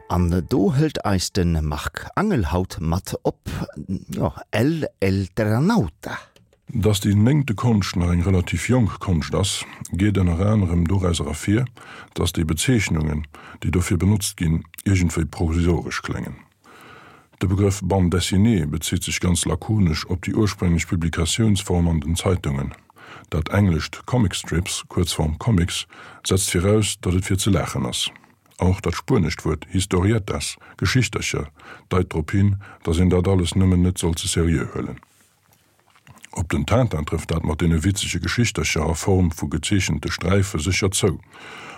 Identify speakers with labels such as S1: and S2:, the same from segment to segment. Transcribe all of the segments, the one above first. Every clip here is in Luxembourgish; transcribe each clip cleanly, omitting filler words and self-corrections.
S1: An do hëlt eis de Marc Angel haut mat op, jo, El Elternauta.
S2: Dass déi néngte Konscht nach eng relativ jonk Konscht ass, geet ënner anerem dorauser ervir, dass déi Bezeechnungen, déi dofir benotzt ginn, iergendwéi provisoresch kléngen. De Begrëff Bande dessinée bezitt sech ganz lakonesch op déi ursprénglech Publikatiounsform an den Zeitungen. Dat englescht Comic Strips, Kuerzform Comics, setzt viraus, datt et fir ze laachen ass. An och dat spuenescht Wuert Historietas, Geschichtercher, deit drop hin, datt een dat alles nëmmen net soll ze seriö huelen. Op den Tintin trëfft dat mat deene witzege Geschichtercher a Form vu gezeechente Sträife sécher zou.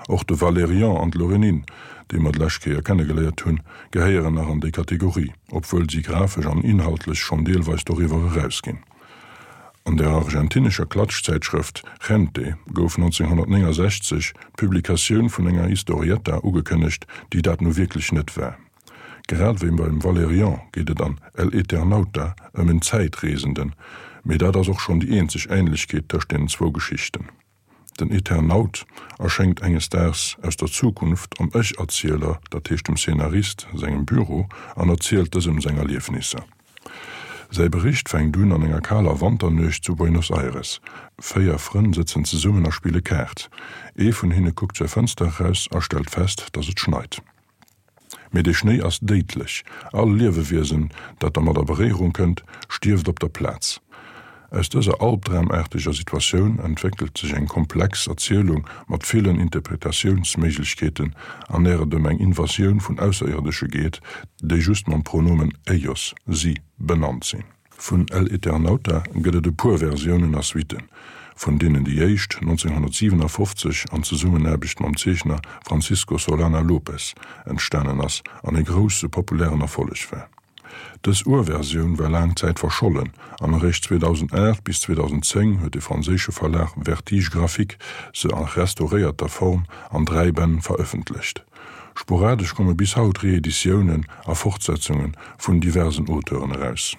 S2: Och de Valérian an d'Lorénine, déi mer d'lescht Kéier kennegeléiert hunn, gehéieren nach an déi Kategorie, obwuel si grafesch an inhaltlech schonn deelweis doriwwer erausginn. An der argentinescher Klatschzäitschrëft Gente gouf 1969 d'Publikatioun vun enger Historietta ugekënnegt, déi dat nu wierklech net war. Grad wéi beim Valerian geet et an El Eternauta ëm en Zäitreesenden, mee dat ass och schonn déi eenzeg Änlechkeet tëscht deenen zwou Geschichten. Den Eternaut erschéngt enges Daags aus der Zukunft am Ech-Erzieler, dat heescht dem Szenarist, sengem Büro an erzielt dësem seng Erliefnisser. Säi Bericht fänkt un an enger kaler Wanternuecht zu Buenos Aires. 4 Frënn sëtzen zesummen a spille Kaart. Ee vun hinne kuckt zur Fënster eraus a stellt fest, datt et schneit. Mee dee Schnéi ass déidlech, all Liewewiesen, dat dermat a Beréierung kënnt, stierft op der Plaz. Aus dëser albdramaarteger Situatioun entwéckelt sech eng komplex Erzielung mat villen Interpretatiounsméiglechkeeten, an där et ëm eng Invasioun vun Ausserierdesche geet, déi just mam Pronomen ellos, si, benannt sinn. Vun El Eternauta gëtt et e puer Versiounen a Suitten, vun deenen déi éischt 1957 an Zesummenaarbecht mam Zeechner Francisco Solana López entstanen ass an e grousse populären Erfolleg war. Dës Urversioun war laang Zäit verschollen an eréischt 2008 bis 2010 huet de franséische Verlag Vertige Graphique se a restauréierter Form an 3 Bänn verëffentlecht. Sporadesch komme bis haut Reeditiounen a Fortsetzunge vun diversen Auteuren eraus.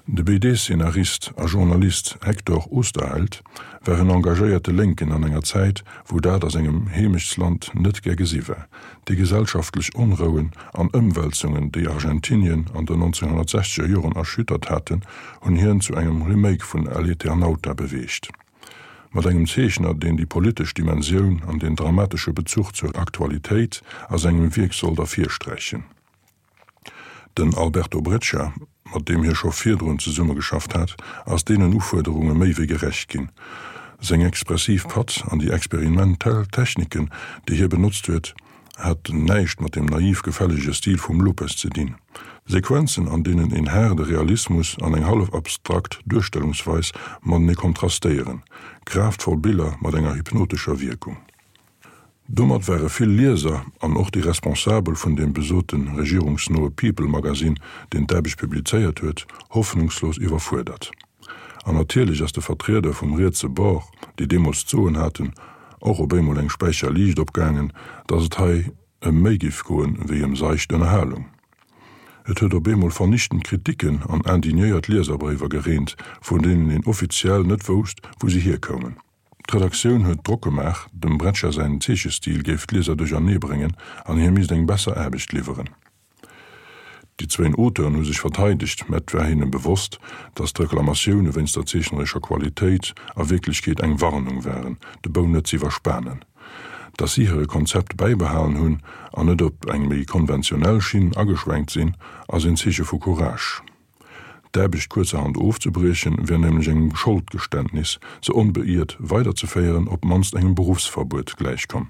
S2: De BD-Szenarist a Journalist Hector Oesterheld war en engagéierte Lénken an enger Zäit, wou dat a sengem Heemechtsland net gär gesi war. Déi gesellschaftlech Onrouen an Ëmwälzungen, déi Argentinien an den 1960er Joren erschüttert haten, hunn hien zu engem Remake vun El Eternauta beweegt. Mat engem Zeechner, deen déi politesch Dimensioun an den dramatesche Bezuch zur Aktualitéit a sengem Wierk sollt ervirsträichen. Den Alberto Breccia, mat deem hie scho virdrun zesummegeschafft hat, ass deenen Ufuerderunge méi wéi gerecht ginn. Seng expressiv Patt an déi experimentell Techniken, déi hie benotzt huet, haten näischt mat dem naiv gefällege Stil vum Lopez ze dinn. Sequenzen, an deenen een haarde Realismus an eng hallef abstrakt Duerstellungsweis matenee kontrastéieren. Kraaftvoll Biller mat enger hypnotescher Wierkung. Domat ware vill Lieser an och déi Responsabel vun deem besote regierungsnoe People-Magasinn, deen d'Aarbecht publizéiert huet, hoffnungslos iwwerfuerdert. An natierlech ass de Vertrieder vum rietse Bord, déi deemools d'Soen haten, och op eemol eng Späicher Liicht opgaangen, datt et hei ëm méi giff goen, wéi ëm seicht Ënnerhalung. Et huet op eemol vernichtend Kritiken an indignéiert Lieserbréiwer gereent, vun deenen een offiziell net wousst, wou se hierkoumen. D'Redaktioun huet Drock gemaach, dem Breccia säin Zeechestil géif d'Lieser duerchernee bréngen an hie misst eng besser Aarbecht liwweren. Déi zwéin Auteuren hu sech verteidegt, mä et war hinne bewosst, datt d'Reklamatioune wéinst der zeechnerescher Qualitéit a Wierklechkeet eng Warnung waren, de Bou net z'iwwerspanen. Datt si hire Konzept bäibehalen hunn an net op eng méi konventionell Schinn ageschwenkt sinn, ass een Zeeche vu Courage. D'Aarbecht kuerzerhand ofzebriechen, wär nämlech engem Scholdgeständnis, se onbeiert weiderzeféieren, op d'mannst engem Beruffsverbuet gläichkomm.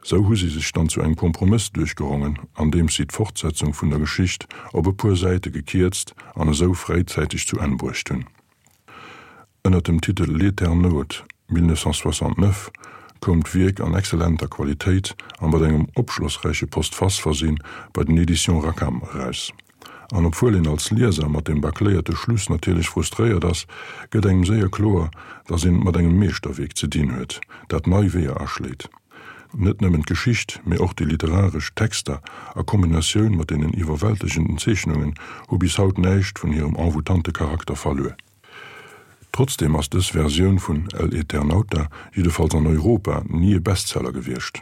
S2: Sou hu si sech dann zu engem Kompromëss duerchgerongen, andeems si d'Fortsetzung vun der Geschicht op e puer Säite gekierzt an esou fréizäiteg zu Enn bruecht hunn. Ënner dem Titel L'Eternaute 1969 koum d'Wierk an exzellenter Qualitéit a mat engem opschlossräiche Postface versinn bei den Editions Rackham eraus. An obwuel een als Lieser mat dem bâcléierte Schluss natierlech frustréiert ass, gëtt engem séier kloer, dass een et mat engem Meeschterwierk ze dinn huet, dat nei Weeër aschléit. Net nëmmen d'Geschicht, mee och déi literaresch Texter a Kombinatioun mat deenen iwwerwältegenden Zeechnungen hu bis haut näischt vun hirem envoûtante Charakter verluer. Trotzdeem ass dës Versioun vun El Eternauta, jiddefalls an Europa, ni e Bestseller gewiescht.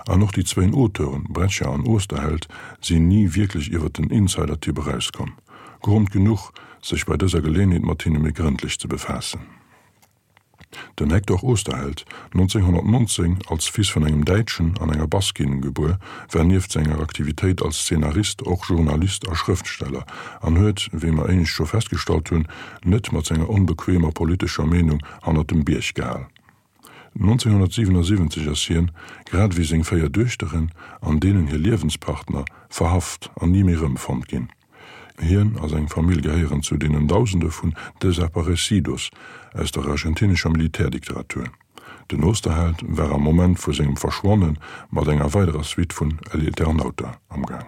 S2: An och déi zwéin Auteuren, Breccia an Oesterheld, sinn ni wierklech iwwer den Insider-Tipp erauskomm. Grond genuch, sech bei dëser Geleenheet mat hinne méi grëndlech ze befaassen. Den Hector Oesterheld, 1919 als Fils vun engem Däitschen an enger Baskin gebuer, war nieft senger Aktivitéit als Zeenarist och Journalist a Schrëftsteller an huet, wéi mer éinescht scho festgestallt hunn, net mat senger onbequemer politescher Meenung hannert dem Bierg gehal. 1977 ass hien, grad ewéi seng 4 Duechteren an deenen hir Liewenspartner, verhaft an ni méi erëmfonnt ginn. Hien a seng Famill gehéieren zu deenen Dausende vun Desaparecidos aus der argentinescher Militärdikteratur. Den Osterheld war am Moment vu sengem Verschwanne mat enger weiderer Suite vun El Eternauta amgaang.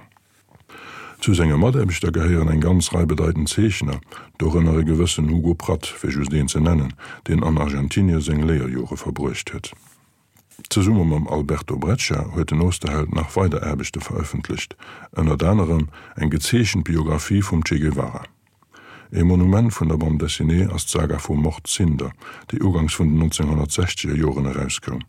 S2: Zu senge Mataarbechter gehéieren eng ganz Rei bedeitend Zeechner, dorënner e gewëssen Hugo Pratt, fir just een ze nennen, deen an Argentinie seng Léierjore verbruecht huet. Zesumme mam Alberto Breccia huet den Oesterheld nach weider Aarbechte verëffentlecht, ënnert anerem eng gezeechent Biographie vum Che Guevara. E Monument vun der Bande dessinée ass d'Saga vum Mort Cinder, déi ugangs vun den 1960er Joren erauskoum.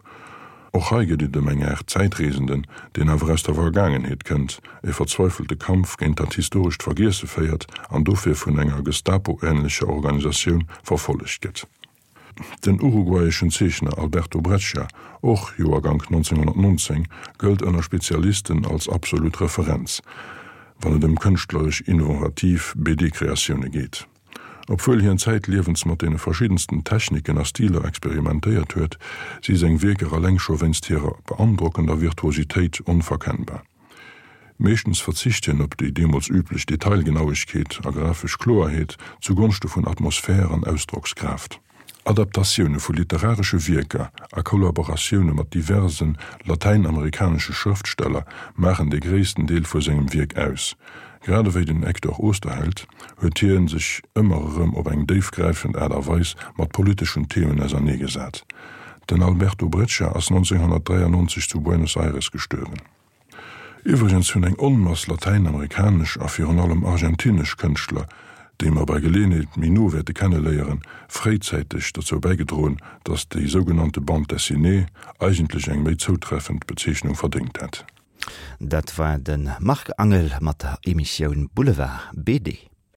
S2: Och hei geet et ëm eng Aart Zäitreesenden, deen awer aus der Vergaangenheet kënnt, e verzweifelte Kampf géint dat historescht Vergiesse féiert an dofir vun enger Gestapo-änlecher Organisatioun verfollegt gëtt. Den uruguayeschen Zeechner Alberto Breccia, och Joergank 1919, gëllt ënner Spezialisten als absolut Referenz, wann et ëm kënschtleresch innovativ BD-Kreatioune geet. Obwuel hien zäitliewens mat deene verschiddensten Techniken a Stiler experimentéiert huet, si seng Wierker eleng scho wéinst hirer beandrockender Virtuositéit onverkennbar. Meeschtens verzicht hien op déi deemools üblech Detailgenauegkeet a grafesch Kloerheet zu Gonschte vun Atmosphär an Ausdrockskraaft. Adaptatioune vu literaresche Wierker a Kollaboratioune mat diverse latäinamerikanesche Schrëftsteller maachen de gréissten Deel vu sengem Wierk aus. Grad ewéi den Hector Oesterheld huet hie sech ëmmer erëm op eng déifgräifend Aart a Weis mat politeschen Themen auserneegesat. Den Alberto Breccia ass 1993 zu Buenos Aires gestuerwen. Iwwregens hunn eng Onmass latäinamerikanesch a virun allem argentinesch Kënschtler, déi mer bei Geleeënheet méi no wäerte kenneléieren, fréizäiteg dozou bäigedroen, datt déi sougenannte Bande dessinée eigentlech eng méi zoutreffend Bezeechnung verdéngt hätt.
S1: Dat war de Marc Angel mat der Emissioun Boulevard BD.